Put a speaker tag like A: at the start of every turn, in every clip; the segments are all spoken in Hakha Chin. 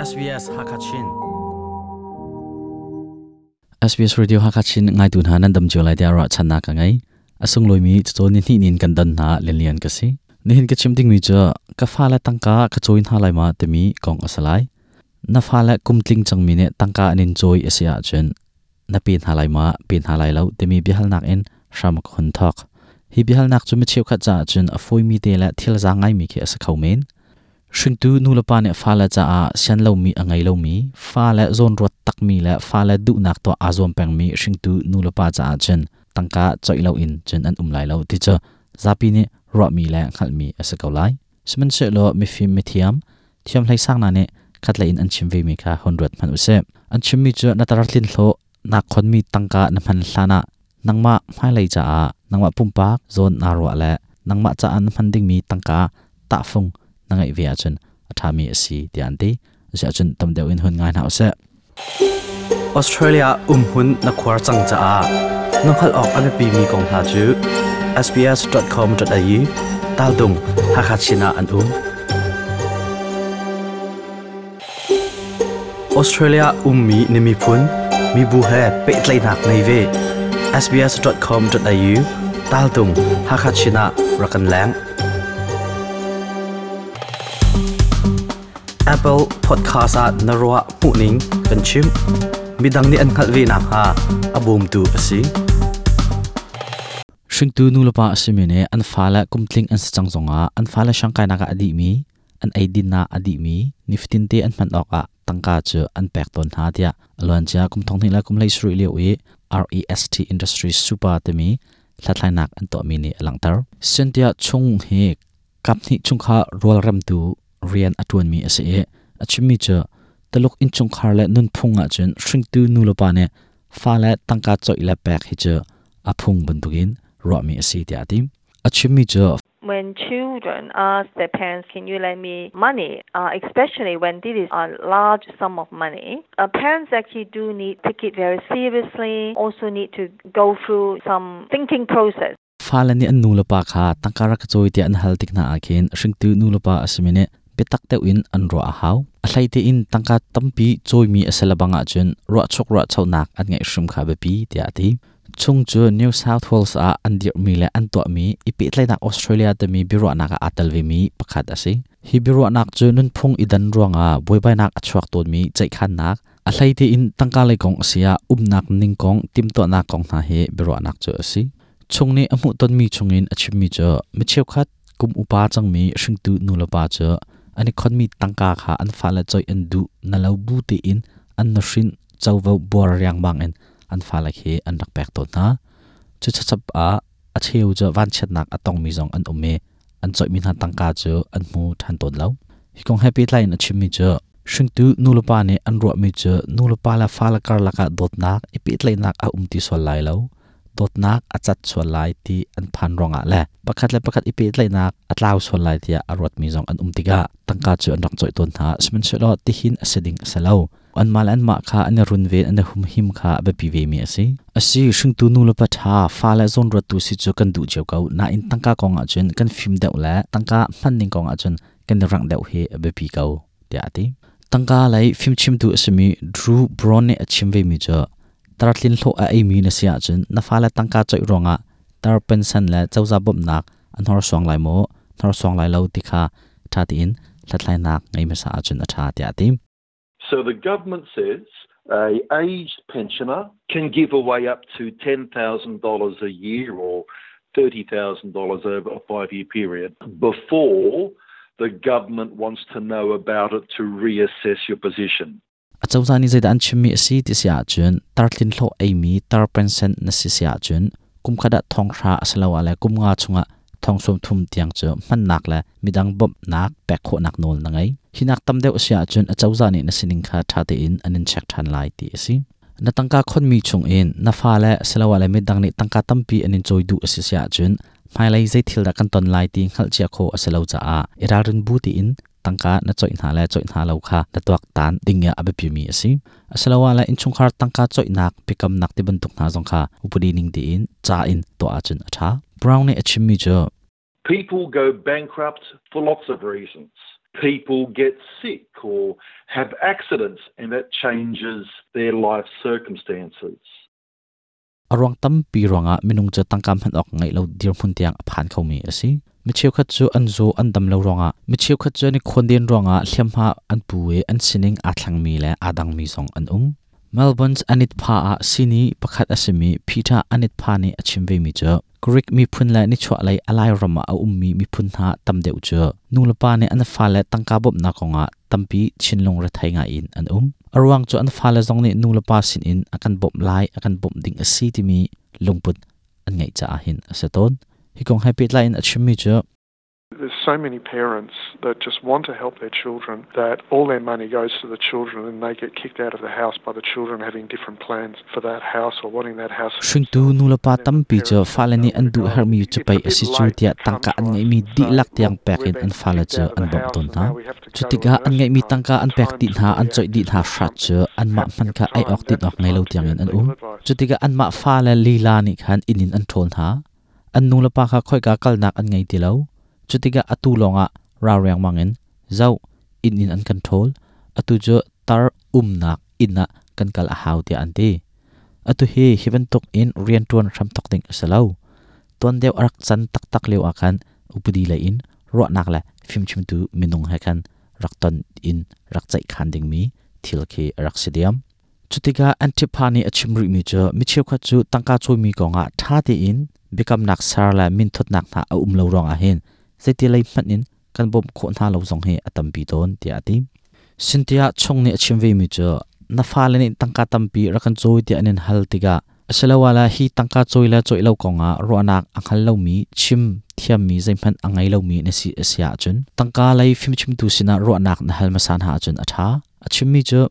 A: SBS Hakachin SBS Radio Hakachin ngaitu hna nan dam cio lai tiah ruah channak ka ngei. A sunglawi cacawn ni hnih nin kan don hna lianlian ka si. Nihin ka chim dingmi cu ka fale tangka ka cawi hna lai ma timi kong a si lai. Na fale kumtling cangmi nih tangka an in cawi a si ahcun na pe hna lai ma pe hna lai lo timi biahalnak in hram ka hun thawk. Hi biahalnak cu mi cheukhat caah cun a fawimi te le thil zaang ngaimi khi a si kho men. Hringtu nulepa nih fale caah sian lomi a ngei lomi, fale zawnruat takmi le fale duhnak tuah aa zuam pengmi hringtu nulepa caah cun tangka coih loin cun an um lai lo ti cu zapi nih ruahmi le hngalhmi a si ko lai. Sihmanhsehlaw mifim mithiam, thiamhlei sang hna nih khatlei in an chim vemi kha hun ruat hmanh usih. An chimmi cu na tar tlin hlawh naa khonmi tangka na hman hlanah nangmah hmailei caah nangmah pumpak zawn naa ruah le nangmah caah na hman dingmi tangka tahfung na ngeih ve ahcun a ṭhami a si tiah an ti. Asiahcun tam deuh in hun ngai hna usih.
B: Australia umhmun na khuar cang caah na hngalh awk a biapimi kong hna cu sbs.com.au taltung Hakha Chin ah an um. Australia ummi na miphun, mibu he pehtlaihnak ngei ve. sbs.com.au taltung Hakha Chin ah rak kan leng. Apple Podcast ah na ruah hmuhning kan chim. Midang nih an hngalh ve nakhnga a bawmtu a si.
A: Hringtu nulepa a simi nih an fale kumtling an si cang zongah an fale siangkainak ah a dihmi an eidin ah a dihmi nifatinte an hman awkah tangka cu an pek tawn hna tiah a luancia kum thonghnih le kum 17 lio i REST Industries Super timi hlathlainak an tuahmi nih a langhter. Cynthia Chung hi kaphnih chungkhar rualremtu rian a ṭuanmi a si i a chimmi cu Taluk innchungkhar le nunphung ahcun hringtu nulepa nih fale tangka coih le pek hi cu a phung bantukin ruahmi a si tiah a ti. A chimmi cu
C: When children ask their parents, can you lend me money, especially when this is a large sum of money, parents actually do need to take it very seriously, also need to go through some thinking process.
A: Fale nih an nulepa kha tangka rak ka cawi tiah an hal tik hna ah khin hringtu nulepa a simi nih biatak deuh in an ruah a hau. A hlei tein tangka tampi cawimi a si lebang ahcun ruahchuk ruahchonak an ngeih hrim kha biapi tiah a ti. Chung cu New South Wales ah an dirhmi le an tuahmi i pehtlaihnak Australia timi biaruahnak ah aa tel vemi pakhat a si. Hi biaruahnak cu nunphung i dan ruangah buaibainak a chuak tawnmi ceihkhannak, a hlei tein tangka lei kong a si ah umnak ning kong timhtuahnak kong hna hi biaruahnak cu a si. Chung nih a hmuhtonmi chungin a chimmi cu mi cheukhat kum upa cangmi hringtu nulepa cu an i khonmi tangka kha an fale coih an duh na lo bu tein an nuhrin covo buar riangmang in an fale khi an rak pek tawn hna. Cu chachap ah a cheu cu vanchiatnak a tongmi zong an um i an coihmi hna tangka cu an hmu ṭhan tawn lo. Hi kong he pehtlai in a chimmi cu hringtu nulepa nih an ruahmi cu nulepa le fale karlak ah dawtnak i pehtlaihnak a um ti sual lai lo, dawtnak a cat sual lai ti an phan ruangah le pakhat le pakhat i pehtlaihnak a tlau sual lai tiah a ruatmi zong an um tikah tangka cu an rak coih tawn hna. Sihmanhsehlaw tihin a si ding a si lo. Anmah le anmah kha an i runven, an i humhim kha a biapi vemi a si. Asi, hringtu nulepa ṭha, fale zawnruattu si cu kan duh cio ko. Nain tangka kong ahcun kan fim deuh le tangka hmanning kong ahcun kan i rangh deuh hi a biapi ko, tiah a ti. Tangka lei fimchimtu a simi Drew Brown nih a chim vemi cu tartlin hlawh a eimi na si ahcun na fale tangka coih ruangah tar pension le cozah bawmhnak a hnorsuang lai maw, hnorsuang lai lo ti kha ṭha tein hlathlainak ngei hmasa ahcun a ṭha, tiah a ti.
D: So the government says a aged pensioner can give away up to $10,000 a year or $30,000 over a 5-year period before the government wants to know about it to reassess your position.
A: Acozah nih zeidah an chimmi a si ti si ahcun tartlin hlawh eimi tar pension na si si ahcun kumkhat ah thonghra asiloah le kumnga chungah thong 30 tiang cu hmannak le midang bawmhnak pek khawhnak nawl na ngei. Hi nak tam deuh a si ahcun acozah nih na sining kha ṭha tein an in check ṭhan lai ti a si. Na tangka khonmi chungin na fale asiloah le midang nih tangka tampi an in cawi duh a si si ahcun hmailei zei thil dah kan ton lai ti hngalhcia khawh a si lo caah i ralrin bu tein tangka na coih hna le coih hna lo kha na tuaktan ding ah a biapimi a si. Asiloah le innchungkhar tangka coihnak biakamnak ti bantuk hna zong kha upadi ning tein ca in tuah ahcun a ṭha. Brown nih a chimmi cu
D: People go bankrupt for lots of reasons. People get sick or have accidents and that changes their life circumstances.
A: A ruang tampi ruangah minung cu tangka hman awk ngeih lo dirhmun tiang a phan khomi a si. Mi cheukhat cu an zaw an dam lo ruangah, mi cheukhat cu an i khawnden ruangah hliamhma an pu i an sining aa thlengmi le aa dangmi zong an um. Melbourne's Anit Pha ah sihni pakhat a simi Peter Anit Pha nih a chim vemi cu Greek miphun le nichuahlei a Lairam ah a ummi miphun hna tam deuh cu nulepa nih an fale tangka bawmhnak kongah tampi thinlung rethei ngaiin an um. A ruang cu an fale zong nih nulepa sinin a kan bawmh lai, a kan bawmh ding a si timi lungput an ngeih caah hin a si tawn. Hi kong he pehtlai in a chimmi cu
E: There's so many parents that just want to help their children that all their money goes to the children and they get kicked out of the house by the children having different plans for that house or wanting that house.
A: Hringtu nulepa tampi cu fale nih an duh herhmi cu pei a si cu tiah tangka an ngeihmi dihlak tiang pek in an fale cu an bawmh tawn hna. Cu tikah an ngeihmi tangka an pek dih hna, an coih dih hna hrat cu anmah hmanh kha ei awk din awk ngei lo tiangin an um. Cu tikah anmah fale lila nih khan inn in an ṭhawl hna. An nulepa kha khoika kalnak an ngei ti lo. Cu tikah atu lawngah rau riangmang in zoh inn in an kan ṭhawl. Atu cu tar umnak inn ah kan kal a hau tiah an ti. Atu hi hi bantuk in rianṭuan hramthawk ding a si lo. Tuan deuh a rak can taktak lio ah khan upadi lei in ruahnak le fimchimtu minung he khan rak ton in rak ceihkhan dingmi thil khi a rak si diam. Cutikah Antipa nih a chim rihmi cu mi cheukhat cu tangka cawimi kongah ṭha tein biakamnak ser le minthutnak hna a um lo ruangah hin zeiti lei hmanh in kan bawmh khawh hna lo zong hi a tampi tawn tiah a ti. Cynthia Chung nih a chim vemi cu na fale nih tangka tampi rak kan cawi tiah an in hal tikah asiloah le hi tangka cawi le cawih lo kongah ruahnak a hngal lomi chim thiammi zeihmanh a ngei lomi na si a si ahcun tangka lei fimchimtu sinah ruahnak na hal hmasa hna ahcun a ṭha. A chimmi cu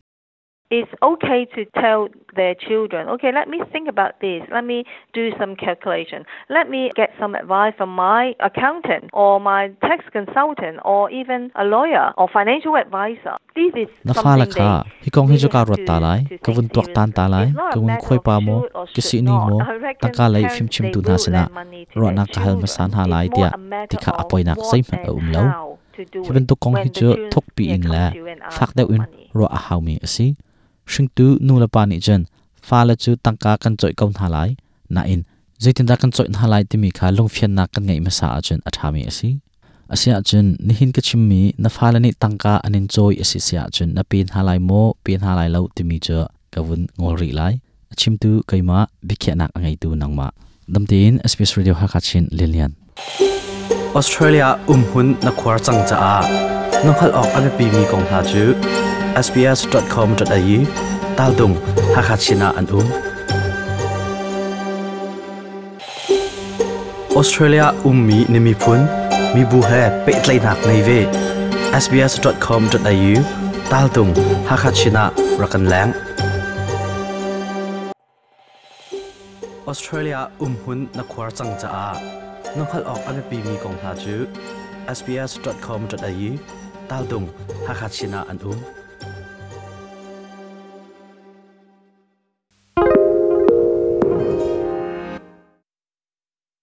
C: It's okay to tell their children, okay, let me think about this. Let me do some calculation. Let me get some advice from my accountant or my tax consultant or even a lawyer or financial advisor. This is
A: Na fale
C: something
A: kha
C: they
A: hi kong hi
C: really
A: cu kaa
C: have
A: ruat ta
C: to,
A: lai,
C: to
A: ka
C: take
A: vun tuaktan ta
C: seriously.
A: lai,
C: It's not
A: ka
C: a
A: vun
C: matter
A: khuai
C: of
A: pa maw,
C: should or
A: ka
C: should
A: sihni
C: not.
A: maw,
C: I reckon
A: tangka lei
C: parents they
A: fimchimtu hna
C: will
A: sinah
C: lend money to their
A: ruahnak ka hal hmasa
C: children.
A: hna
C: It's
A: lai
C: more
A: tiah
C: a matter
A: ti kha a
C: of
A: poinak
C: what
A: zeihmanh a
C: and
A: um lo.
C: how to do
A: Hi
C: it
A: bantuk kong hi
C: when the
A: cu
C: children
A: thukpi
C: yeah,
A: in
C: come
A: le
C: to you and ask
A: fak
C: for
A: deuh in
C: money.
A: ruah a haumi a si. Hringtu nulepa nih cun fale cu tangka kan cawih ko hna lai, nain zeitindah kan cawih hna lai timi kha lungfiannak kan ngeih hmasa ahcun a ṭhami a si. Asiahcun nihin ka chimmi na fale nih tangka an in cawi a si si ahcun na pe hna lai maw, pe hna lai lo timi cu ka vun ngol rih lai. A chimtu keimah, biakhiahnak a ngeitu nangmah. Damtein SBS Radio Hakha Chin Lilian.
B: Australia umhun na khuar cang caah na hngalh awk a biapimi kong hna cu sbs.com.au taldung Hakha Chin ah an um. Australia ummi na miphun mibu he pehtlaihnak ngei ve. sbs.com.au taltung Hakha Chin ah rak kan leng. Australia umhun na khuar cang caah na hngalh awk a biapimi kong hna cu sbs.com.au taltung Hakha Chin ah an um.